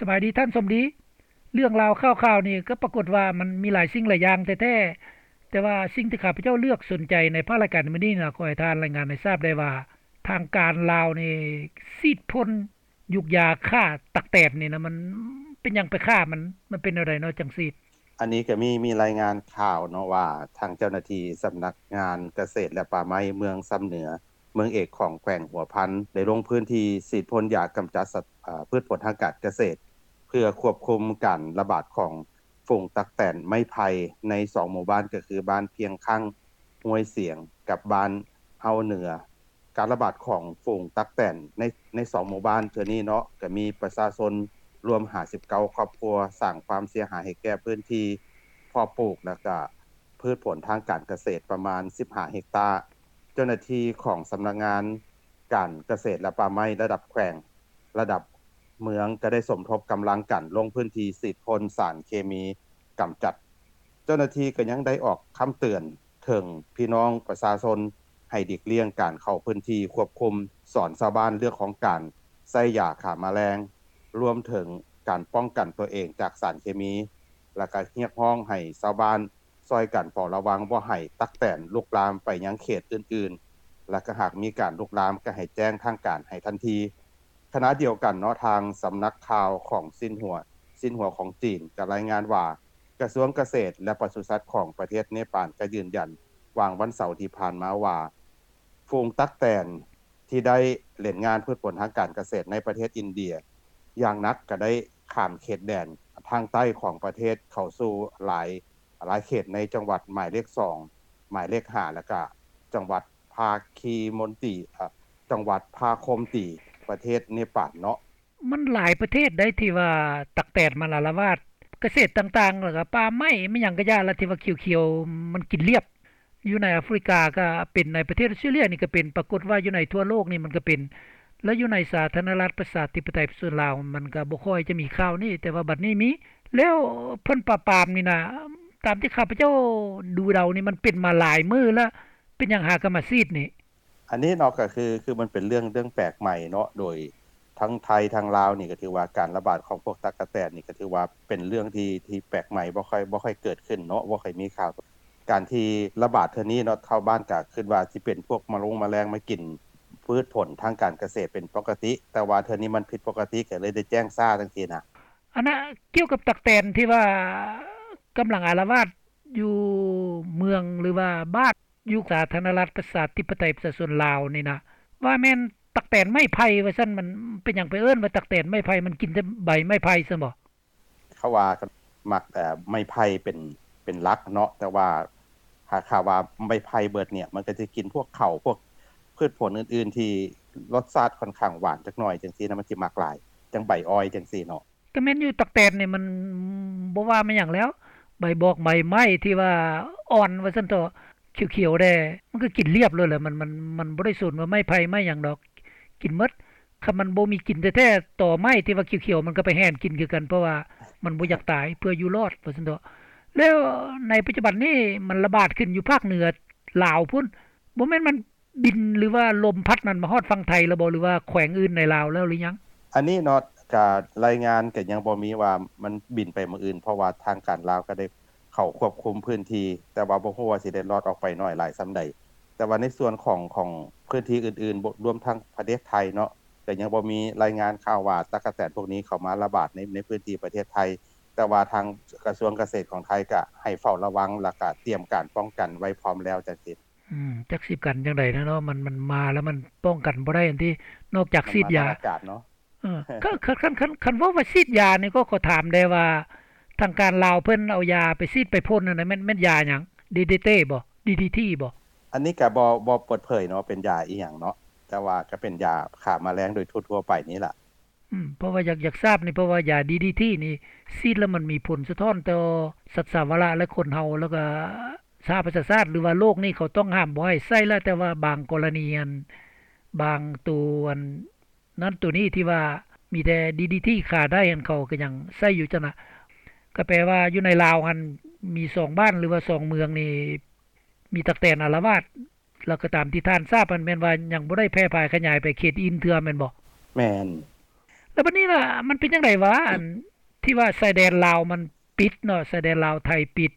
ສະບາຍດີທ່ານສົມດີ. ເລື່ອງລາວຂ່າວໆນີ້ກໍປາກົດວ່າມັນມີຫຼາຍສິ່ງຫຼາຍຢ່າງແທ້ໆ, ແຕ່ວ່າສິ່ງທີ່ຂ້າພະເຈົ້າເລືອກສົນໃຈໃນພາກລາຍການໃນມື້ນີ້ນະ ຂໍໃຫ້ທ່ານລາຍງານໃຫ້ຊາບໄດ້ວ່າ ທາງການລາວນີ້ສີດພົ່ນຢູກຢາຂ້າຕັກແຕນນີ້ນະ ມັນເປັນຫຍັງໄປຂ້າມັນ? ມັນເປັນແນວໃດເນາະຈັ່ງສີດ? ອັນນີ້ກໍມີ ມີລາຍງານຂ່າວເນາະວ່າ ທາງເຈົ້າໜ້າທີ່ສຳນັກງານກະເສດ ແລະ ປ່າໄມ້ເມືອງຊຳເໜືອ ເມືອງເອກຂອງແຂວງຫົວພັນ ໄດ້ລົງພື້ນທີ່ສີດພົ່ນຢາກຳຈັດສັດ ອາ ພືດຜົນທາງການກະເສດ ເພື່ອຄວບຄຸມການລະບາດຂອງຝູງຕັກແຕນໄມ້ໄຜ່ໃນສອງໝູ່ບ້ານ ກໍຄືບ້ານພຽງຄັ່ງ ຫ້ວຍສຽງ ກັບບ້ານເຮົາເໜືອ. ການລະບາດຂອງຝູງຕັກແຕນໃນ ໃນສອງໝູ່ບ້ານເທື່ອນີ້ເນາະ ກໍມີປະຊາຊົນລວມຫ້າສິບເກົ້າຄອບຄົວ ສ້າງຄວາມເສຍຫາຍໃຫ້ແກ່ພື້ນທີ່ເພາະປູກ ແລະ ກະພືດຜົນທາງການກະເສດປະມານສິບຫ້າເຮັກຕາ. ເຈົ້າໜ້າທີ່ຂອງສຳນັກງານການກະເສດ ແລະ ປ່າໄມ້ລະດັບແຂວງ ລະດັບເມືອງ ກໍໄດ້ສົມທົບກຳລັງກັນລົງພື້ນທີ່ສີດພົ່ນສານເຄມີກຳຈັດ. ເຈົ້າໜ້າທີ່ກໍຍັງໄດ້ອອກຄຳເຕືອນ ເຖິງພີ່ນ້ອງປະຊາຊົນໃຫ້ຫຼີກລ່ຽງການເຂົ້າພື້ນທີ່ຄວບຄຸມ, ສອນຊາວບ້ານເລື່ອງຂອງການໃຊ້ຢາຂ້າມະແລງ, ລວມເຖິງການປ້ອງກັນຕົວເອງຈາກສານເຄມີ ແລະ ກະຮຽກຮ້ອງໃຫ້ຊາວບ້ານຊ່ອຍກັນເຝົ້າລະວັງບໍ່ໃຫ້ຕັກແຕນລຸກລາມໄປຍັງເຂດອື່ນໆ ແລະ ກະຫາກມີການລຸກລາມກະໃຫ້ແຈ້ງທາງການໃຫ້ທັນທີ. ຂະນະດຽວກັນເນາະ ທາງສຳນັກຂ່າວຂອງຊິນຫົວ ຊິນຫົວຂອງຈີນກະລາຍງານວ່າ ກະຊວງກະເສດ ແລະ ປະສຸສັດຂອງປະເທດເນປານກໍຢືນຢັນຫວ່າງວັນເສົາທີ່ຜ່ານມາວ່າ ຝູງຕັກແຕນທີ່ໄດ້ເຫຼັ້ນງານພືດຜົນທາງການກະເສດໃນປະເທດອິນເດຍຢ່າງໜັກ ກໍໄດ້ຂ້າມເຂດແດນທາງໃຕ້ຂອງປະເທດເຂົ້າສູ່ຫຼາຍ ຫຼາຍເຂດໃນຈັງຫວັດໝາຍເລກສອງ ໝາຍເລກຫ້າ ແລ້ວກະຈັງຫວັດພາຄີມົນຕີ ເອີ ຈັງຫວັດພາຄົມຕີ ປະເທດເນປານເນາະ. ມັນຫຼາຍປະເທດໃດທີ່ວ່າຕັກແຕນມັນອາລະວາດ ກະເສດຕ່າງໆ ແລ້ວກະປ່າໄມ້ ແມ່ນຫຍັງກະຢ່າລະ ທີ່ວ່າຂຽວໆ ມັນກິນລຽບ. ຢູ່ໃນອາຟຣິກາກະເປັນ, ໃນປະເທດອອສເຕຣເລຍນີ້ກະເປັນ, ປາກົດວ່າຢູ່ໃນທົ່ວໂລກນີ້ມັນກະເປັນ ແລະ ຢູ່ໃນສາທາລະນະລັດປະຊາທິປະໄຕປະຊາຊົນລາວ ມັນກະບໍ່ຄ່ອຍຈະມີຂ່າວນີ້ ແຕ່ວ່າບັດນີ້ມີ. ແລ້ວເພິ່ນປາບປາມນີ້ນະ ຕາມທີ່ຂ້າພະເຈົ້າດູເດົານີ້ ມັນເປັນມາຫຼາຍມື້ລະ ເປັນຫຍັງຫາກະມາສີດນີ້? ອັນນີ້ເນາະ ກໍຄື ຄືມັນເປັນເລື່ອງ ເລື່ອງແປກໃໝ່ເນາະ ໂດຍທັງໄທທັງລາວນີ້ ກໍຖືວ່າການລະບາດຂອງພວກຕັກກະແຕນນີ້ ກໍຖືວ່າເປັນເລື່ອງທີ່ ທີ່ແປກໃໝ່ ບໍ່ຄ່ອຍ ບໍ່ຄ່ອຍເກີດຂຶ້ນເນາະ ບໍ່ຄ່ອຍມີຂ່າວ. ການທີ່ລະບາດເທື່ອນີ້ເນາະ ຊາວບ້ານກໍຄິດວ່າຊິເປັນພວກມະລົງມະແລງມາກິນພືດຜົນທາງການກະເສດເປັນປົກກະຕິ ແຕ່ວ່າເທື່ອນີ້ມັນຜິດປົກກະຕິ ກໍເລີຍໄດ້ແຈ້ງຊ້າຈັ່ງຊີ້ນະ. ອັນນະ ກ່ຽວກັບຕັກແຕນທີ່ວ່າກຳລັງອາລະວາດຢູ່ເມືອງ ຫຼືວ່າບ້ານ ຢູ່ສາທາລະນະລັດປະຊາທິປະໄຕປະຊາຊົນລາວນີ້ນະ ວ່າແມ່ນຕັກແຕນໄມ້ໄຜ່ວ່າຊັ້ນ ມັນເປັນຫຍັງໄປເອີ້ນວ່າຕັກແຕນໄມ້ໄຜ່? ມັນກິນແຕ່ໃບໄມ້ໄຜ່ຊັ້ນບໍ? ເຂົາວ່າມັກ ເອີ ໄມ້ໄຜ່ເປັນ ເປັນຫຼັກເນາະ ແຕ່ວ່າຫາກ ຖ້າວ່າໄມ້ໄຜ່ເບິດນີ້ ມັນກໍຈະກິນພວກເຂົ້າ ພວກພືດຜົນອື່ນໆ ທີ່ລົດຊາດຂ້ອນຂ້າງຫວານຈັກໜ້ອຍຈັ່ງຊີ້ນະ ມັນຊິມັກຫຼາຍ ຈັ່ງໃບອ້ອຍຈັ່ງຊີ້ເນາະ. ກໍແມ່ນຢູ່ ຕັກແຕນນີ້ມັນບໍ່ວ່າແມ່ນຫຍັງແລ້ວ ໃບບອກໃບໄມ້ທີ່ວ່າອ່ອນວ່າຊັ້ນເຖາະ ຂຽວໆແດ່ ມັນກໍກິນລຽບໂລດແຫຼະ ມັນ ມັນ ມັນບໍ່ໄດ້ສົນວ່າໄມ້ໄຜ່ໄມ້ຫຍັງດອກ ກິນໝົດ. ຄັນມັນບໍ່ມີກິນແທ້ໆ ຕໍໄມ້ທີ່ວ່າຂຽວໆ ມັນກໍໄປແຫນກິນຄືກັນ ເພາະວ່າມັນບໍ່ຢາກຕາຍ ເພື່ອຢູ່ລອດວ່າຊັ້ນເຖາະ. ແລ້ວໃນປັດຈຸບັນນີ້ມັນລະບາດຂຶ້ນຢູ່ພາກເໜືອລາວພຸ້ນ ບໍ່ແມ່ນມັນ ບິນ ຫຼືວ່າລົມພັດນັ້ນມາຮອດຝັ່ງໄທແລ້ວບໍ່ ຫຼືວ່າແຂວງອື່ນໃນລາວແລ້ວຫຼືຍັງ? ອັນນີ້ເນາະ ກະລາຍງານກະຍັງບໍ່ມີວ່າມັນບິນໄປເມືອງອື່ນ ເພາະວ່າທາງການລາວກະໄດ້ເຂົ້າຄວບຄຸມພື້ນທີ່ ແຕ່ວ່າບໍ່ຮູ້ວ່າຊິໄດ້ລອດອອກໄປໜ້ອຍຫຼາຍສ່ຳໃດ. ແຕ່ວ່າໃນສ່ວນຂອງ ຂອງພື້ນທີ່ອື່ນໆ ລວມທັງປະເທດໄທເນາະ ກະຍັງບໍ່ມີລາຍງານຂ່າວວ່າຕັກກະແຕນພວກນີ້ເຂົ້າມາລະບາດໃນ ໃນພື້ນທີ່ປະເທດໄທ ແຕ່ວ່າທາງກະຊວງກະເສດຂອງໄທກະໃຫ້ເຝົ້າລະວັງ ແລ້ວກະຕຽມການປ້ອງກັນໄວ້ພ້ອມແລ້ວຈັ່ງຊີ້. ອືມ ຈັກຊິກັນຈັ່ງໃດແລ້ວເນາະ ມັນ ມັນມາແລ້ວມັນປ້ອງກັນບໍ່ໄດ້ຫັ້ນຕິ ນອກຈາກສີດຢາ ມັນມາທາງອາກາດເນາະ. ເອີ ຄັນ ຄັນ ຄັນ ຄັນ ຄັນເວົ້າວ່າສີດຢານີ້ ກໍຂໍຖາມແດ່ວ່າ ທາງການລາວເພິ່ນເອົາຢາໄປສີດໄປພົ່ນຫັ້ນນະ ແມ່ນ ແມ່ນຢາຫຍັງ? ດີດີທີ ບໍ່? ດີດີທີ ບໍ່? ອັນນີ້ກະບໍ່ ບໍ່ເປີດເຜີຍເນາະ ເປັນຢາອີ່ຫຍັງເນາະ ແຕ່ວ່າກະເປັນຢາຂ້າມະແລງໂດຍທົ່ວໆໄປນີ້ລະ. ອືມ ເພາະວ່າຢາກ ຢາກຊາບນີ້ ເພາະວ່າຢາດີດີທີນີ້ ສີດແລ້ວມັນມີຜົນສະທ້ອນຕໍ່ສັດສາວະລະ ແລະ ຄົນເຮົາ ແລ້ວກະສະຫະປະຊາຊາດ ຫຼືວ່າໂລກນີ້ເຂົາຕ້ອງຫ້າມບໍ່ໃຫ້ໃຊ້ແລ້ວ ແຕ່ວ່າບາງກໍລະນີຫັ້ນ ບາງໂຕອັນນັ້ນໂຕນີ້ທີ່ວ່າມີແຕ່ດີດີທີຂ້າໄດ້ຫັ້ນ ເຂົາກໍຍັງໃຊ້ຢູ່ຊັ້ນນະ. ກໍແປວ່າຢູ່ໃນລາວຫັ້ນມີສອງບ້ານ ຫຼືວ່າສອງເມືອງນີ້ ມີຕັກແຕນອາລະວາດ ແລ້ວກໍຕາມທີ່ທ່ານຊາບຫັ້ນ ແມ່ນວ່າຍັງບໍ່ໄດ້ແຜ່ພາຍຂະຫຍາຍໄປເຂດອື່ນເທື່ອແມ່ນບໍ່? ແມ່ນ. ແລ້ວບັດນີ້ລະ ມັນເປັນຈັ່ງໃດຫວາ ອັນທີ່ວ່າຊາຍແດນລາວມັນປິດເນາະ ຊາຍແດນລາວໄທປິດ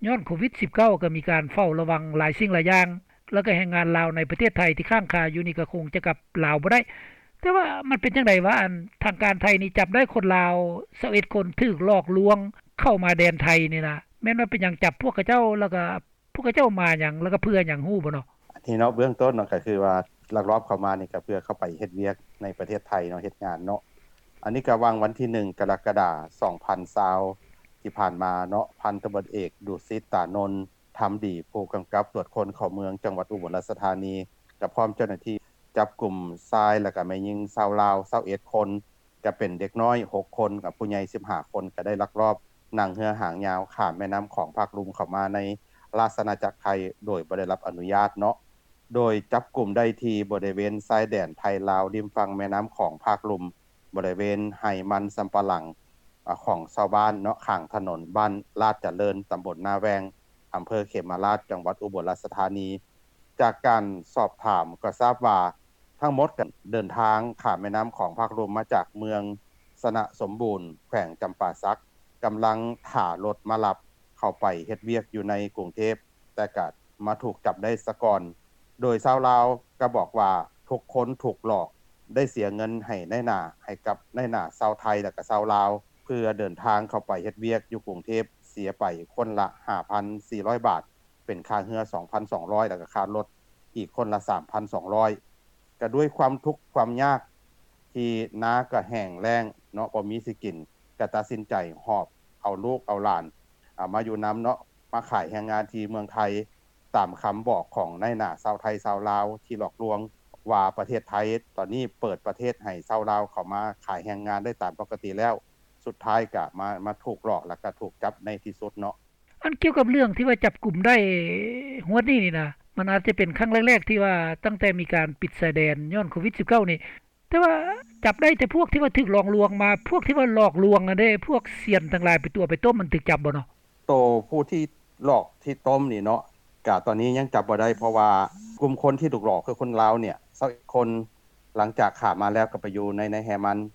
ຍ້ອນໂຄວິດ-19 ກໍມີການເຝົ້າລະວັງຫຼາຍສິ່ງຫຼາຍຢ່າງ ແລ້ວກໍແຮງງານລາວໃນປະເທດໄທທີ່ຄ້າງຄາຢູ່ນີ້ກໍຄົງຈະກັບລາວບໍ່ໄດ້ ແຕ່ວ່າມັນເປັນຈັ່ງໃດຫວາ ອັນທາງການໄທນີ້ຈັບໄດ້ຄົນລາວຊາວເອັດຄົນ ຖືກຫຼອກລວງເຂົ້າມາແດນໄທນີ້ນະ ແມ່ນວ່າເປັນຫຍັງຈັບພວກເຂົາເຈົ້າ ແລ້ວກໍ ພວກເຂົາເຈົ້າມາຫຍັງ ແລ້ວກໍເພື່ອຫຍັງ ຮູ້ບໍ່ເນາະ? ອັນນີ້ເນາະ ເບື້ອງຕົ້ນເນາະ ກໍຄືວ່າລັກລອບເຂົ້າມານີ້ ກໍເພື່ອເຂົ້າໄປເຮັດວຽກໃນປະເທດໄທເນາະ ເຮັດງານເນາະ. ອັນນີ້ກໍຫວ່າງວັນທີໜຶ່ງ ກໍລະກະດາ ສອງພັນຊາວ ທີ່ຜ່ານມາເນາະ ພັນຕຳຫຼວດເອກ ດຸສິດ ຕານົນ ທຳດີ ຜູ້ກຳກັບຕວດຄົນເຂົ້າເມືອງ ຈັງຫວັດອຸບົນລາຊະທານີ ກໍພ້ອມເຈົ້າໜ້າທີ່ ຈັບກຸມຊາຍ ແລ້ວກໍແມ່ຍິງຊາວລາວຊາວເອັດຄົນ ກະເປັນເດັກນ້ອຍຫົກຄົນ ກັບຜູ້ໃຫຍ່ສິບຫ້າຄົນ ກະໄດ້ລັກລອບນັ່ງເຮືອຫາງຍາວຂ້າມແມ່ນ້ຳຂອງພາກລຸ່ມເຂົ້າມາໃນລາຊະອານາຈັກໄທ ໂດຍບໍ່ໄດ້ຮັບອະນຸຍາດເນາະ. ໂດຍຈັບກຸມໄດ້ທີ່ບໍລິເວນຊາຍແດນໄທລາວ ລິມຝັ່ງແມ່ນ້ຳຂອງພາກລຸ່ມ ບໍລິເວນໄຮ່ມັນສຳປະຫຼັງ ອາ ຂອງຊາວບ້ານເນາະ ຂ້າງຖະໜົນບ້ານລາດຈະເລີນ ຕຳບົນນາແວງ ອຳເພີເຂມະລາດ ຈັງຫວັດອຸບົນລາຊະທານີ. ຈາກການສອບຖາມກໍຊາບວ່າ ທັງໝົດກໍເດີນທາງຂ້າມແມ່ນ້ຳຂອງພາກລຸ່ມມາຈາກເມືອງຊະນະສົມບູນ ແຂວງຈຳປາສັກ ກຳລັງຖ້າລົດມາຮັບເຂົ້າໄປເຮັດວຽກຢູ່ໃນກຸງເທບ ແຕ່ກໍມາຖືກຈັບໄດ້ສາກ່ອນ. ໂດຍຊາວລາວກໍບອກວ່າ ທຸກຄົນຖືກຫຼອກ ໄດ້ເສຍເງິນໃຫ້ນາຍໜ້າ ໃຫ້ກັບນາຍໜ້າຊາວໄທ ແລ້ວກໍຊາວລາວ ເພື່ອເດີນທາງເຂົ້າໄປເຮັດວຽກຢູ່ກຸງເທບ ເສຍໄປຄົນລະຫ້າພັນສີ່ຮ້ອຍບາດ ເປັນຄ່າເຮືອສອງພັນສອງຮ້ອຍ ແລ້ວກໍຄ່າລົດອີກຄົນລະສາມພັນສອງຮ້ອຍ. ກໍດ້ວຍຄວາມທຸກຄວາມຍາກ ທີ່ນາກໍແຫ້ງແລ້ງເນາະ ບໍ່ມີຊິກິນ ກໍຕັດສິນໃຈຫອບເອົາລູກເອົາຫຼານ ອາ ມາຢູ່ນຳເນາະ ມາຂາຍແຮງງານທີ່ເມືອງໄທ ຕາມຄຳບອກຂອງນາຍໜ້າຊາວໄທຊາວລາວທີ່ຫຼອກລວງວ່າ ປະເທດໄທຕອນນີ້ເປີດປະເທດໃຫ້ຊາວລາວເຂົ້າມາຂາຍແຮງງານໄດ້ຕາມປົກກະຕິແລ້ວ ສຸດທ້າຍກະມາ ມາຖືກຫຼອກ ແລ້ວກະຖືກຈັບໃນທີ່ສຸດເນາະ. ອັນກ່ຽວກັບເລື່ອງທີ່ວ່າຈັບກຸມໄດ້ຮວດນີ້ນີ້ນະ ມັນອາດຈະເປັນຄັ້ງແລກໆ ທີ່ວ່າຕັ້ງແຕ່ມີການປິດຊາຍແດນຍ້ອນໂຄວິດ-19 ນີ້ ແຕ່ວ່າຈັບໄດ້ແຕ່ພວກທີ່ວ່າຖືກຫຼອກລວງມາ ພວກທີ່ວ່າຫຼອກລວງຫັ້ນເດ້ ພວກຊຽນທັງຫຼາຍໄປຕົວະໄປຕົ້ມ ມັນຖືກຈັບບໍ່ເນາະ? ໂຕຜູ້ທີ່ຫຼອກທີ່ຕົ້ມນີ້ເນາະ ກະຕອນນີ້ຍັງຈັບບໍ່ໄດ້ ເພາະວ່າກຸ່ມຄົນທີ່ຖືກຫຼອກຄືຄົນລາວເນຍ ຊາວເອັດຄົນ ຫຼັງຈາກຂ້າມມາແລ້ວກໍໄປຢູ່ໃນ ໃນໄຮ່ມັນ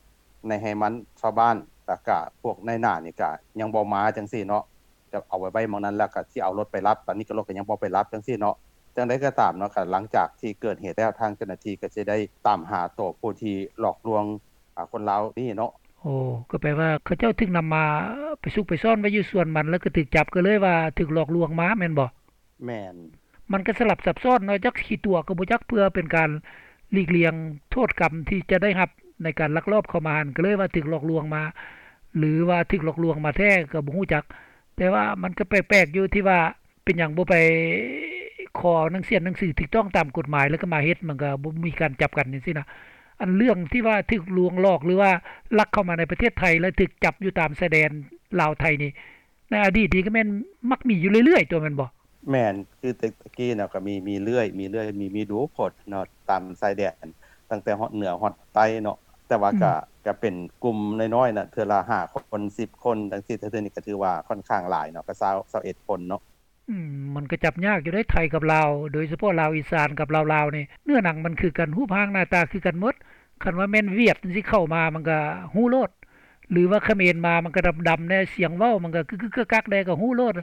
ໃນໄຮ່ມັນຊາວບ້ານ ແລ້ວກະພວກນາຍໜ້ານີ້ກະຍັງບໍ່ມາຈັ່ງຊີ້ເນາະ ຈະເອົາໄວ້ ໄວ້ໝ່ອງນັ້ນ ແລ້ວກະຊິເອົາລົດໄປຮັບ ຕອນນີ້ກໍລົດກໍຍັງບໍ່ໄປຮັບຈັ່ງຊີ້ເນາະ. ຈັ່ງໃດກໍຕາມເນາະ ກໍຫຼັງຈາກທີ່ເກີດເຫດແລ້ວ ທາງເຈົ້າໜ້າທີ່ກໍຊິໄດ້ຕາມຫາໂຕຜູ້ທີ່ຫຼອກລວງ ອາ ຄົນລາວນີ້ເນາະ. ໂອ້ ກໍແປວ່າເຂົາເຈົ້າຖືກນຳມາໄປຊຸກໄປຊ້ອນໄວ້ຢູ່ສວນມັນ ແລ້ວກໍຖືກຈັບ ກໍເລີຍວ່າຖືກຫຼອກລວງມາແມ່ນບໍ່? ແມ່ນ. ມັນກໍສະຫຼັບສັບຊ້ອນເນາະ ຈັກຊິຕົວະກໍບໍ່ຈັກ ເພື່ອເປັນການຫຼີກລ່ຽງໂທດກຳທີ່ຈະໄດ້ຮັບໃນການລັກລອບເຂົ້າມາຫັ້ນ ກໍເລີຍວ່າຖືກຫຼອກລວງມາ ຫຼືວ່າຖືກຫຼອກລວງມາແທ້ກໍບໍ່ຮູ້ຈັກ. ແຕ່ວ່າມັນກໍແປກໆຢູ່ທີ່ວ່າ ເປັນຫຍັງບໍ່ໄປຂໍໜັງສຽນໜັງສືຖືກຕ້ອງຕາມກົດໝາຍ ແລ້ວກໍມາເຮັດ ມັນກໍບໍ່ມີການຈັບກັນຈັ່ງຊີ້ນະ. ອັນເລື່ອງທີ່ວ່າຖືກລວງຫຼອກ ຫຼືວ່າລັກເຂົ້າມາໃນປະເທດໄທ ແລ້ວຖືກຈັບຢູ່ຕາມຊາຍແດນລາວໄທນີ້ ໃນອະດີດນີ້ກໍແມ່ນມັກມີຢູ່ເລື້ອຍໆຕົວະແມ່ນບໍ່? ແມ່ນ ຄືແຕ່ ແຕ່ກີ້ນະກໍມີ ມີເລື້ອຍ ມີເລື້ອຍ ມີ ມີດູໂພດເນາະ ຕາມຊາຍແດນ ຕັ້ງແຕ່ຮອດເໜືອຮອດໃຕ້ເນາະ. ແຕ່ວ່າ ອືມ ກະ ກະເປັນກຸ່ມນ້ອຍໆນະ ເທື່ອລະຫ້າຄົນ ສິບຄົນ ຈັ່ງຊີ້ ແຕ່ເທື່ອນີ້ກໍຖືວ່າຂ້ອນຂ້າງຫຼາຍເນາະ ກໍຊາວ ຊາວເອັດຄົນເນາະ. ອືມ ມັນກໍຈັບຍາກຢູ່ເດ້ ໄທກັບລາວ ໂດຍສະເພາະລາວອີສານກັບລາວລາວນີ້ ເນື້ອໜັງມັນຄືກັນ ຮູບຮ່າງໜ້າຕາຄືກັນໝົດ. ຄັນວ່າແມ່ນຫວຽດຈັ່ງຊີ້ເຂົ້າມາ ມັນກໍຮູ້ໂລດ ຫຼືວ່າຂະເໝນມາ ມັນກໍດຳໆແດ່ ສຽງເວົ້າມັນກໍກຶກໆກັກໆແດ່ກໍຮູ້ໂລດ.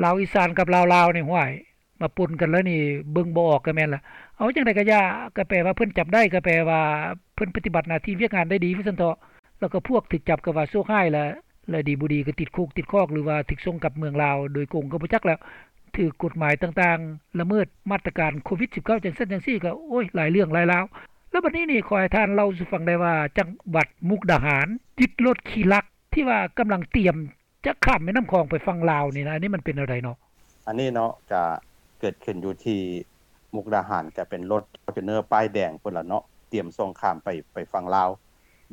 ລາວອີສານກັບລາວລາວນີ້ ຫ້ວຍ ມາປົນກັນແລ້ວນີ້ ເບິ່ງບໍ່ອອກກໍແມ່ນລະ. ເອົາຈັ່ງໃດກໍຢ່າ ກໍແປວ່າເພິ່ນຈັບໄດ້ ກໍແປວ່າເພິ່ນປະຕິບັດໜ້າທີ່ວຽກງານໄດ້ດີວ່າຊັ້ນເຖາະ. ແລ້ວກໍພວກຖືກຈັບກໍວ່າໂຊກຮ້າຍລະ ແລະ ດີບໍ່ດີກໍຕິດຄຸກຕິດຄອກ ຫຼືວ່າຖືກສົ່ງກັບເມືອງລາວໂດຍກົງກໍບໍ່ຈັກແລ້ວ ຖືກກົດໝາຍຕ່າງໆ ລະເມີດມາດຕະການໂຄວິດ-19 ຈັ່ງຊັ້ນຈັ່ງຊີ້ ກໍ ໂອ້ຍ ຫຼາຍເລື່ອງຫຼາຍລາວ. ແລ້ວບັດນີ້ນີ້ ຂໍໃຫ້ທ່ານເລົ່າສູ່ຟັງໄດ້ວ່າ ຈັງຫວັດມຸກດາຫານຍຶດລົດຂີ້ລັກ ທີ່ວ່າກຳລັງຕຽມຈະຂ້າມແມ່ນ້ຳຂອງໄປຝັ່ງລາວນີ້ນະ ອັນນີ້ມັນເປັນແນວໃດເນາະ? ອັນນີ້ເນາະ ກະເກີດຂຶ້ນຢູ່ທີ່ມຸກດາຫານ ກະເປັນລົດຟໍຈູນເນີປ້າຍແດງພຸ້ນລະເນາະ ຕຽມສົ່ງຂ້າມໄປ ໄປຝັ່ງລາວ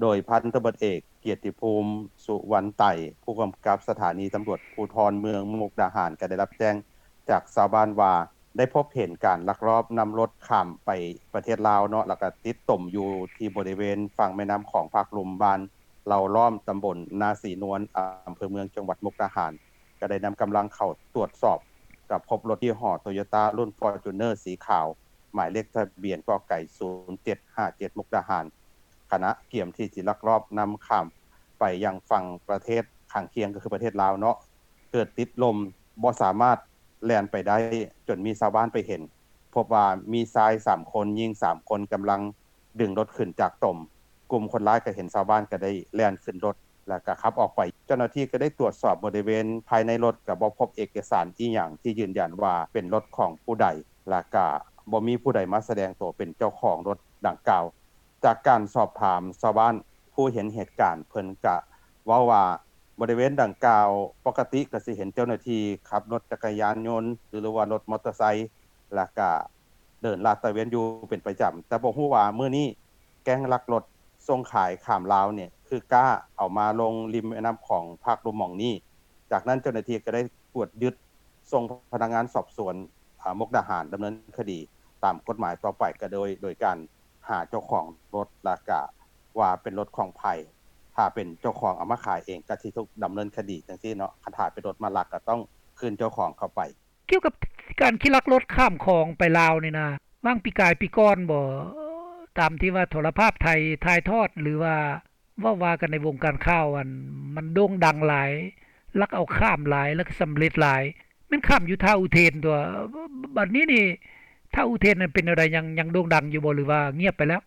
ໂດຍພັນຕຳຫຼວດເອກ ກຽດຕິພູມ ສຸວັນໄຕ ຜູ້ກຳກັບສະຖານີຕຳຫຼວດພູທອນເມືອງມຸກດາຫານ ກໍໄດ້ຮັບແຈ້ງຈາກຊາວບ້ານວ່າ ໄດ້ພົບເຫັນການລັກລອບນຳລົດຂ້າມໄປປະເທດລາວເນາະ ແລ້ວກໍຕິດຕົມຢູ່ທີ່ບໍລິເວນຝັ່ງແມ່ນ້ຳຂອງພາກລຸ່ມ ບ້ານເຫຼົ່າລ້ອມ ຕຳບົນນາສີນວນ ອຳເພີເມືອງ ຈັງຫວັດມຸກດາຫານ ກໍໄດ້ນຳກຳລັງເຂົ້າຕວດສອບ ກໍພົບລົດຍີ່ຫໍ້ໂຕໂຍຕ້າ ລຸ້ນຟໍຈູນເນີສີຂາວ ໝາຍເລກທະບຽນ ກ.ໄກ່ ສູນເຈັດຫ້າເຈັດ ມຸກດາຫານ. ຄະນະກຽມທີ່ຈະລັກລອບນຳຂ້າມໄປຍັງຝັ່ງປະເທດຂ້າງຄຽງ ກໍຄືປະເທດລາວເນາະ ເກີດຕິດລົມບໍ່ສາມາດແລ່ນໄປໄດ້ ຈົນມີຊາວບ້ານໄປເຫັນ ພົບວ່າມີຊາຍສາມຄົນ ຍິງສາມຄົນ ກຳລັງດຶງລົດຂຶ້ນຈາກຕົມ. ກຸ່ມຄົນຮ້າຍກໍເຫັນຊາວບ້ານກໍໄດ້ແລ່ນຂຶ້ນລົດ ແລ້ວກໍຂັບອອກໄປ. ເຈົ້າໜ້າທີ່ກໍໄດ້ຕວດສອບບໍລິເວນພາຍໃນລົດ ກໍບໍ່ພົບເອກະສານອີ່ຫຍັງທີ່ຢືນຢັນວ່າເປັນລົດຂອງຜູ້ໃດ ແລ້ວກໍບໍ່ມີຜູ້ໃດມາສະແດງໂຕເປັນເຈົ້າຂອງລົດດັ່ງກ່າວ. ຈາກການສອບຖາມຊາວບ້ານຜູ້ເຫັນເຫດການ ເພິ່ນກະເວົ້າວ່າ ບໍລິເວນດັ່ງກ່າວ ປົກກະຕິກະຊິເຫັນເຈົ້າໜ້າທີ່ຂັບລົດຈັກກະຍານຍົນ ຫຼືວ່າລົດມໍເຕີໄຊ ແລ້ວກະເດີນລາດຕະເວນຢູ່ເປັນປະຈຳ, ແຕ່ບໍ່ຮູ້ວ່າມື້ນີ້ແກ້ງລັກລົດສົ່ງຂາຍຂ້າມລາວນີ້ ຄືກ້າເອົາມາລົງລິມແມ່ນ້ຳຂອງພາກລຸ່ມໝ່ອງນີ້. ຈາກນັ້ນເຈົ້າໜ້າທີ່ກໍໄດ້ກວດຍຶດ ສົ່ງພະນັກງານສອບສວນ ອາ ມຸກດາຫານດຳເນີນຄະດີຕາມກົດໝາຍຕໍ່ໄປ ກໍໂດຍ ໂດຍການຫາເຈົ້າຂອງລົດ ແລ້ວກະວ່າເປັນລົດຂອງໃຜ, ຖ້າເປັນເຈົ້າຂອງເອົາມາຂາຍເອງ ກໍຊິຖືກດຳເນີນຄະດີຈັ່ງຊີ້ເນາະ, ຄັນຖ້າເປັນລົດມາລັກ ກໍຕ້ອງຄືນເຈົ້າຂອງເຂົ້າໄປ. ກ່ຽວກັບການຂີ່ລັກລົດຂ້າມຂອງໄປລາວນີ້ນະ, ຫວ່າງປີກາຍປີກ່ອນບໍ ຕາມທີ່ວ່າໂທລະພາບໄທຖ່າຍທອດ ຫຼືວ່າ ເວົ້າວ່າກັນໃນວົງການຂ່າວ ອັນ ມັນໂດ່ງດັງຫຼາຍ, ລັກເອົາຂ້າມຫຼາຍ ແລ້ວກໍສຳເລັດຫຼາຍ, ແມ່ນຂ້າມຢູ່ທ່າອຸເທນຕົວະ. ບ- ບັດນີ້ນີ້ ທ່າອຸເທນນັ້ນເປັນແນວໃດ? ຍັງ ຍັງໂດ່ງດັງຢູ່ບໍ່ ຫຼືວ່າງຽບໄປແລ້ວ?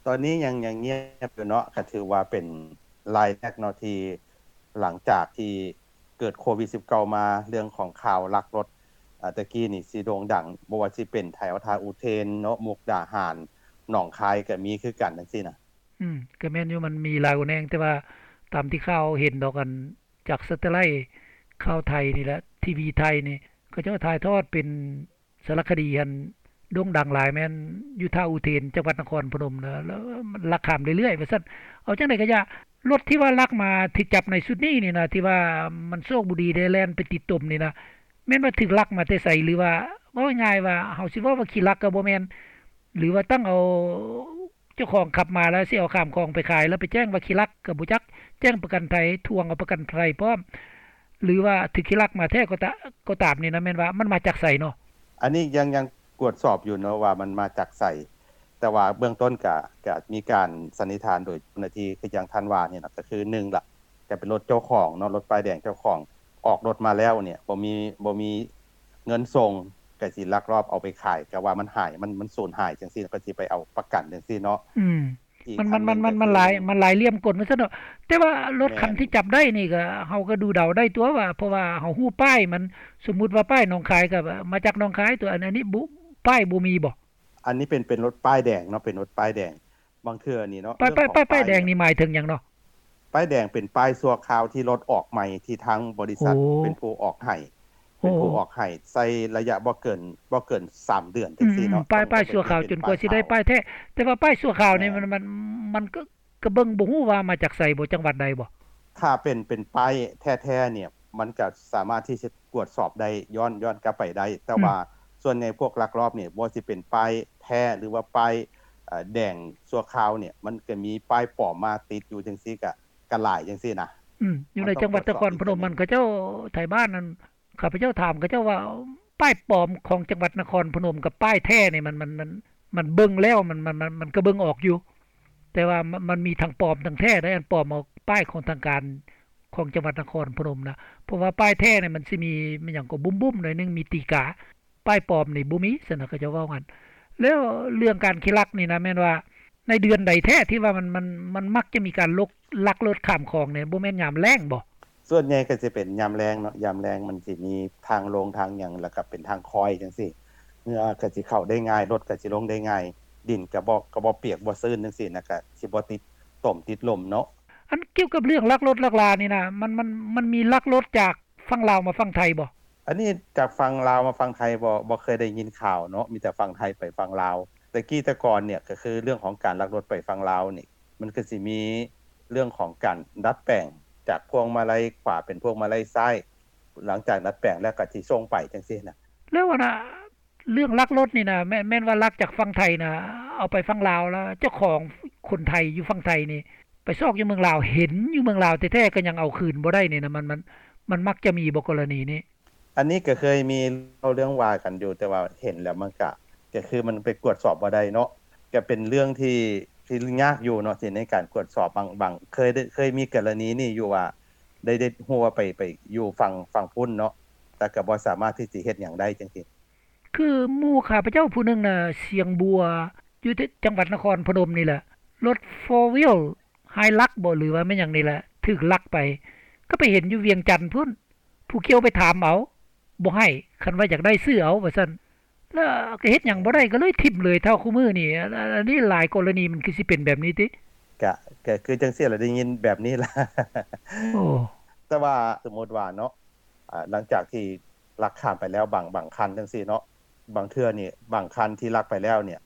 ຕອນນີ້ຍັງ ຍັງງຽບຢູ່ເນາະ, ກໍຖືວ່າເປັນລາຍແລກເນາະ ທີ່ຫຼັງຈາກທີ່ເກີດໂຄວິດສິບເກົ້າມາ ເລື່ອງຂອງຂ່າວລັກລົດ ອາ ແຕ່ກີ້ນີ້ຊິໂດ່ງດັງ, ບໍ່ວ່າຊິເປັນແຖວທ່າອຸເທນເນາະ, ມຸກດາຫານ, ໜອງຄາຍກໍມີຄືກັນ ຈັ່ງຊີ້ນະ. ອືມ ກໍແມ່ນຢູ່ ມັນມີຫຼາຍຫົວແນງ, ແຕ່ວ່າຕາມທີ່ຂ່າວເຫັນດອກ ອັນ ຈາກສາເຕໄລຂ່າວໄທນີ້ແຫຼະ ທີວີໄທນີ້ ເຂົາເຈົ້າຖ່າຍທອດເປັນສາລະຄະດີ ອັນໂດ່ງດັງຫຼາຍ ແມ່ນຢູ່ທ່າອຸເທນ ຈັງຫວັດນະຄອນພະນົມ ແລ້ວ ແລ້ວມັນລັກຂ້າມເລື້ອຍໆ ວ່າຊັ້ນ. ເອົາຈັ່ງໃດກໍຢ່າ ລົດທີ່ວ່າລັກມາ ຖືກຈັບໃນຊຸດນີ້ນີ້ນະ ທີ່ວ່າມັນໂຊກບໍ່ດີໄດ້ແລ່ນໄປຕິດຕົມນີ້ນະ ແມ່ນວ່າຖືກລັກມາແຕ່ໃສ ຫຼືວ່າ ເວົ້າງ່າຍໆ ວ່າ ເຮົາຊິເວົ້າວ່າຂີ້ລັກກໍບໍ່ແມ່ນ ຫຼືວ່າຕັ້ງເອົາ ເຈົ້າຂອງຂັບມາແລ້ວຊິເອົາຂ້າມຂອງໄປຂາຍ ແລ້ວໄປແຈ້ງວ່າຂີ້ລັກກໍບໍ່ຈັກ, ແຈ້ງປະກັນໄພ, ທວງເອົາປະກັນໄພພ້ອມ ຫຼືວ່າຖືກຂີ້ລັກມາແທ້ກໍຕາ ກໍຕາມນີ້ນະ ແມ່ນວ່າມັນມາຈາກໃສເນາະ? ອັນນີ້ຍັງ ຍັງກວດສອບຢູ່ເນາະວ່າມັນມາຈາກໃສ, ແຕ່ວ່າເບື້ອງຕົ້ນກະ ກະມີການສັນນິຖານໂດຍເຈົ້າໜ້າທີ່ ຄືຢ່າງທ່ານວ່ານີ້ນະ ກໍຄືໜຶ່ງລະ ກະເປັນລົດເຈົ້າຂອງເນາະ, ລົດປ້າຍແດງເຈົ້າຂອງ ອອກລົດມາແລ້ວນີ້ ບໍ່ມີ ບໍ່ມີເງິນສົ່ງ ກະຊິລັກລອບເອົາໄປຂາຍ ກະວ່າມັນຫາຍ ມັນ ມັນສູນຫາຍຈັ່ງຊີ້ ກະຊິໄປເອົາປະກັນຈັ່ງຊີ້ເນາະ. ອືມ ອີກ ມັນ ອັນໜຶ່ງ ມັນ ມັນ ກໍຄື ມັນຫຼາຍ ມັນຫຼາຍຫຼ່ຽມກົນວ່າຊັ້ນເນາະ. ແຕ່ວ່າລົດ ແມ່ນ ຄັນທີ່ຈັບໄດ້ນີ້ ກໍເຮົາກໍດູເດົາໄດ້ຕົວະວ່າ ເພາະວ່າເຮົາຮູ້ປ້າຍມັນ, ສົມມຸດວ່າປ້າຍໜອງຄາຍກໍມາຈາກໜອງຄາຍຕົວະ, ອັນ ອັນນີ້ບໍ່ ປ້າຍບໍ່ມີບໍ? ອັນນີ້ເປັນ ເປັນລົດປ້າຍແດງເນາະ, ເປັນລົດປ້າຍແດງ. ບາງເທື່ອນີ້ເນາະ ປ້າຍ ປ້າຍ ປ້າຍແດງນີ້ໝາຍເຖິງຫຍັງເນາະ? ປ້າຍແດງເປັນປ້າຍຊົ່ວຄາວທີ່ລົດອອກໃໝ່ ທີ່ທາງບໍລິສັດ ໂອ້ ເປັນຜູ້ອອກໃຫ້ ໂອ້ ເປັນຜູ້ອອກໃຫ້ ໃຊ້ໄລຍະບໍ່ເກີນ ບໍ່ເກີນສາມເດືອນ ອືມ ຈັ່ງຊີ້ເນາະ. ປ້າຍ ປ້າຍຊົ່ວຄາວຈົນກວ່າຊິໄດ້ປ້າຍແທ້. ແຕ່ວ່າປ້າຍຊົ່ວຄາວນີ້ ແມ່ນ ມັນ ມັນ ມັນກໍ ກໍເບິ່ງບໍ່ຮູ້ວ່າມາຈາກໃສບໍ ຈັງຫວັດໃດບໍ? ຖ້າເປັນ ເປັນປ້າຍແທ້ໆ ນີ້ ມັນກໍສາມາດທີ່ຈະກວດສອບໄດ້ ຍ້ອນ ຍ້ອນກັບໄປໄດ້. ແຕ່ ອືມ ວ່າສ່ວນໃຫຍ່ພວກລັກລອບນີ້ ບໍ່ວ່າຊິເປັນປ້າຍແທ້ ຫຼືວ່າປ້າຍ ເອີ ແດງຊົ່ວຄາວນີ້ ມັນກໍມີປ້າຍປອມມາຕິດຢູ່ຈັ່ງຊີ້ ກໍ ກໍຫຼາຍຈັ່ງຊີ້ນະ. ອືມ ຢູ່ໃນຈັງຫວັດນະຄອນພະນົມ ມັນ ເຂົາເຈົ້າ ໄທບ້ານນັ້ນ ຂ້າພະເຈົ້າຖາມເຂົາເຈົ້າວ່າ ປ້າຍປອມຂອງຈັງຫວັດນະຄອນພະນົມກັບປ້າຍແທ້ນີ້ ມັນ ມັນ ມັນ ມັນເບິ່ງແລ້ວ ມັນ ມັນ ມັນ ມັນກໍເບິ່ງອອກຢູ່ ແຕ່ວ່າມັນ ມັນມີທັງປອມທັງແທ້ໄດ໋. ອັນປອມເອົາປ້າຍຂອງທາງການຂອງຈັງຫວັດນະຄອນພະນົມນະ, ເພາະວ່າປ້າຍແທ້ນີ້ມັນຊິມີ ມີຫຍັງກໍບຸ້ມໆ ໜ້ອຍໜຶ່ງ ມີຕີກາ, ປ້າຍປອມນີ້ບໍ່ມີ ຊັ້ນນະ ເຂົາເຈົ້າເວົ້າຫັ້ນ. ແລ້ວເລື່ອງການຂີ້ລັກນີ້ນະ ແມ່ນວ່າໃນເດືອນໃດແທ້ທີ່ວ່າມັນ ມັນ ມັນມັກຈະມີການລົກ ລັກລົດຂ້າມຂອງນີ້ ບໍ່ແມ່ນຍາມແລ້ງບໍ? ສ່ວນໃຫຍ່ກໍຊິເປັນຍາມແລ້ງເນາະ, ຍາມແລ້ງມັນຊິມີທາງລົງທາງຫຍັງ ແລ້ວກໍເປັນທາງຄອຍຈັ່ງຊີ້, ເຫື່ອກໍຊິເຂົ້າໄດ້ງ່າຍ, ລົດກໍຊິລົງໄດ້ງ່າຍ, ດິນກໍບໍ່ ກໍບໍ່ປຽກບໍ່ຊື້ນຈັ່ງຊີ້ນະ, ກໍຊິບໍ່ຕິດຕົມຕິດລົມເນາະ. ອັນກ່ຽວກັບເລື່ອງລັກລົດລັກລານີ້ນະ ມັນ ມັນ ມັນມີລັກລົດຈາກຝັ່ງລາວມາຝັ່ງໄທບໍ່? ອັນນີ້ຈາກຝັ່ງລາວມາຝັ່ງໄທບໍ່ ບໍ່ເຄີຍໄດ້ຍິນຂ່າວເນາະ, ມີແຕ່ຝັ່ງໄທໄປຝັ່ງລາວ. ແຕ່ກີ້ແຕ່ກ່ອນນີ້ ກໍຄືເລື່ອງຂອງການລັກລົດໄປຝັ່ງລາວນີ້ ມັນກໍຊິມີເລື່ອງຂອງການດັດແປງ ຈາກພວງມາໄລຂວາເປັນພວງມາໄລຊ້າຍ, ຫຼັງຈາກດັດແປງແລ້ວກໍຊິສົ່ງໄປຈັ່ງຊີ້ນະ. ແລ້ວອັນນະ ເລື່ອງລັກລົດນີ້ນະ ແມ່ນ ແມ່ນວ່າລັກຈາກຝັ່ງໄທນະ ເອົາໄປຝັ່ງລາວ ແລ້ວເຈົ້າຂອງຄົນໄທຢູ່ຝັ່ງໄທນີ້ ໄປຊອກຢູ່ເມືອງລາວ ເຫັນຢູ່ເມືອງລາວແທ້ໆ ກໍຍັງເອົາຄືນບໍ່ໄດ້ນີ້ນະ ມັນ ມັນ ມັນມັກຈະມີບໍ່ກໍລະນີນີ້? ອັນນີ້ກໍເຄີຍມີເລົ່າເລື່ອງວ່າກັນຢູ່, ແຕ່ວ່າເຫັນແລ້ວມັນກະ ກໍຄືມັນໄປກວດສອບບໍ່ໄດ້ເນາະ, ກໍເປັນເລື່ອງທີ່ ທີ່ຍາກຢູ່ເນາະ ທີ່ໃນການກວດສອບ ບາງ ບາງ ເຄີຍໄດ້ ເຄີຍມີກໍລະນີນີ້ຢູ່ວ່າ ໄດ້ ໄດ້ຮູ້ວ່າໄປ ໄປຢູ່ຝັ່ງ ຝັ່ງພຸ້ນເນາະ ແຕ່ກໍບໍ່ສາມາດທີ່ຊິເຮັດຫຍັງໄດ້ຈັ່ງຊີ້. ຄືໝູ່ຂ້າພະເຈົ້າຜູ້ໜຶ່ງນະ ຊຽງບົວ ຢູ່ທີ່ຈັງຫວັດນະຄອນພະນົມນີ້ແຫຼະ ລົດໂຟວີລ ຮາຍລັກບໍ ຫຼືວ່າແມ່ນຫຍັງນີ້ແຫຼະ ຖືກລັກໄປ ກໍໄປເຫັນຢູ່ວຽງຈັນພຸ້ນ ຜູ້ກ່ຽວໄປຖາມເອົາ ບໍ່ໃຫ້ ຄັນວ່າຢາກໄດ້ຊື້ເອົາວ່າຊັ້ນ ແລ້ວກໍເຮັດຫຍັງບໍ່ໄດ້ ກໍເລີຍຖິ້ມເລີຍ. ເທົ່າຄູ່ມື້ນີ້ ອັນ ອັນນີ້ຫຼາຍກໍລະນີ ມັນຄືຊິເປັນແບບນີ້ຕິ? ກະ ກະຄືຈັ່ງຊີ້ລະ ໄດ້ຍິນແບບນີ້ລະ. ໂອ້ ແຕ່ວ່າສົມມຸດວ່າເນາະ ອາ ຫຼັງຈາກທີ່ລັກຂ້າມໄປແລ້ວ ບາງ ບາງຄັນຈັ່ງຊີ້ເນາະ ບາງເທື່ອນີ້ ບາງຄັນທີ່ລັກໄປແລ້ວນີ້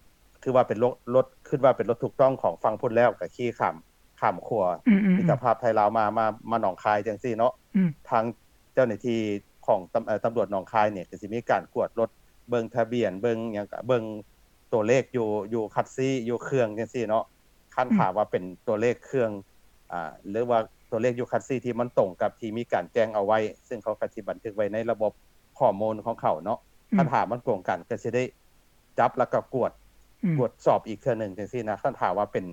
ຖືວ່າເປັນລົດ ລົດ ຄິດວ່າເປັນລົດຖືກຕ້ອງຂອງຝັ່ງພຸ້ນແລ້ວ ກໍຂີ່ຂ້າມ ຂ້າມຂົວ ອືມໆໆ ມິດຕະພາບໄທລາວມາ ມາ ມາໜອງຄາຍຈັ່ງຊີ້ເນາະ ອືມ ທາງເຈົ້າໜ້າທີ່ຂອງຕຳ ເອີ ຕຳຫຼວດໜອງຄາຍນີ້ ກໍຊິມີການກວດລົດ ເບິ່ງທະບຽນ ເບິ່ງຫຍັງ ກະເບິ່ງຕົວເລກຢູ່ ຢູ່ຄັດຊີ ຢູ່ເຄື່ອງຈັ່ງຊີ້ເນາະ. ຄັນ ອືມ ຖ້າວ່າເປັນຕົວເລກເຄື່ອງ ອາ ຫຼືວ່າຕົວເລກຢູ່ຄັດຊີທີ່ມັນຕົງກັບທີ່ມີການແຈ້ງເອົາໄວ້ ເຊິ່ງເຂົາກໍຊິບັນທຶກໄວ້ໃນລະບົບຂໍ້ມູນຂອງເຂົາເນາະ ອືມ ຄັນຖ້າມັນກົງກັນ ກໍຊິໄດ້ຈັບ ແລ້ວກໍກວດ ອືມ ກວດສອບອີກເທື່ອໜຶ່ງຈັ່ງຊີ້ນະ. ຄັນຖ້າວ່າເປັນ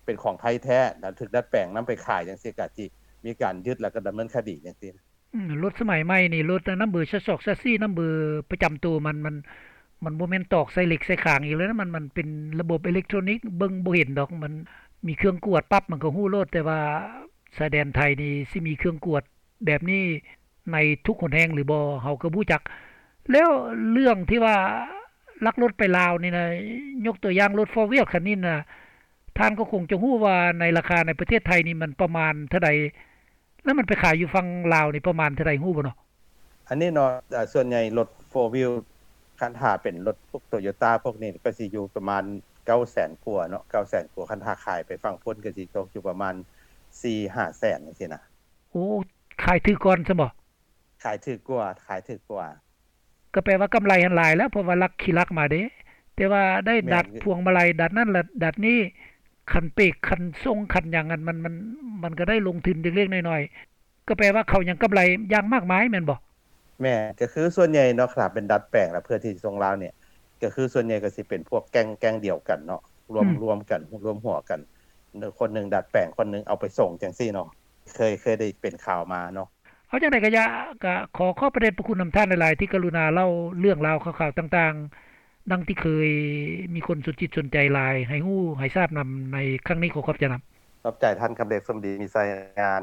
ເປັນຂອງໄທແທ້ ແລ້ວຖືກດັດແປງນຳໄປຂາຍຈັ່ງຊີ້ ກໍຊິມີການຍຶດ ແລ້ວກໍດຳເນີນຄະດີຈັ່ງຊີ້. ອືມ ລົດສະໄໝໃໝ່ນີ້ ລົດນຳເບີຊາຊອກຊາຊີ ນຳເບີປະຈຳໂຕ ມັນ ມັນ ມັນບໍ່ແມ່ນຕອກໃສ່ເຫຼັກໃສ່ຄາງອີກແລ້ວນະ ມັນ ມັນເປັນລະບົບເອເລັກໂທຣນິກ ເບິ່ງບໍ່ເຫັນດອກ ມັນມີເຄື່ອງກວດປັບ ມັນກໍຮູ້ໂລດ. ແຕ່ວ່າຊາຍແດນໄທນີ້ຊິມີເຄື່ອງກວດແບບນີ້ໃນທຸກຫົນແຫ່ງຫຼືບໍ່ ເຮົາກໍບໍ່ຮູ້ຈັກ. ແລ້ວເລື່ອງທີ່ວ່າລັກລົດໄປລາວນີ້ນະ ຍົກຕົວຢ່າງລົດໂຟວີລຄັນນີ້ນະ ທ່ານກໍຄົງຈະຮູ້ວ່າໃນລາຄາໃນປະເທດໄທນີ້ມັນປະມານເທົ່າໃດ? ແລ້ວມັນໄປຂາຍຢູ່ຝັ່ງລາວນີ້ປະມານເທົ່າໃດ ຮູ້ບໍ່ເນາະ? ອັນນີ້ເນາະ ເອີ ສ່ວນໃຫຍ່ລົດໂຟວີລ ຄັນຖ້າເປັນລົດພວກໂຕໂຍຕ້າພວກນີ້ ກໍຊິຢູ່ປະມານເກົ້າແສນກວ່າເນາະ ເກົ້າແສນກວ່າ. ຄັນຖ້າຂາຍໄປຝັ່ງພຸ້ນ ກໍຊິຕົກຢູ່ປະມານສີ່ຫ້າແສນຈັ່ງຊີ້ນະ. ໂອ້ ຂາຍຖືກກ່ອນຊັ້ນບໍ? ຂາຍຖືກກວ່າ ຂາຍຖືກກວ່າ. ກໍແປວ່າກຳໄລຫັ້ນຫຼາຍແລ້ວ ເພາະວ່າລັກ ຂີ່ລັກມາເດ້ ແຕ່ວ່າໄດ້ດັດພວງມາໄລ ດັດນັ້ນລະດັດນີ້ ຄັນເປກ ຄັນສົ່ງ ຄັນຫຍັງ ອັນມັນ ມັນ ມັນກໍໄດ້ລົງທຶນເລັກໆນ້ອຍໆ ກໍແປວ່າເຂົາຍັງກຳໄລຢ່າງມາກມາຍແມ່ນບໍ່? ແມ່ນ ກໍຄືສ່ວນໃຫຍ່ເນາະ ຖ້າເປັນດັດແປງລະເພື່ອທີ່ຈະສົ່ງລາວນີ້ ກໍຄືສ່ວນໃຫຍ່ກໍຊິເປັນພວກແກ້ງ ແກ້ງດຽວກັນເນາະ ລວມ ອືມ ລວມກັນ ລວມຫົວກັນ ຄົນໜຶ່ງດັດແປງ ຄົນໜຶ່ງເອົາໄປສົ່ງຈັ່ງຊີ້ເນາະ ເຄີຍ ເຄີຍໄດ້ເປັນຂ່າວມາເນາະ. ເອົາຈັ່ງໃດກໍຢ່າ ກໍຂໍຂອບພະເດດພະຄຸນນຳທ່ານຫຼາຍໆ ທີ່ກະລຸນາເລົ່າເລື່ອງລາວຂ່າວໆຕ່າງໆ ດັ່ງທີ່ເຄີຍມີຄົນສົນຈິດສົນໃຈຫຼາຍ ໃຫ້ຮູ້ໃຫ້ຊາບນຳໃນຄັ້ງນີ້. ຂໍຂອບໃຈນຳ. ຂອບໃຈທ່ານຄຳເລັກ ສົມດີມີໄຊ ງານ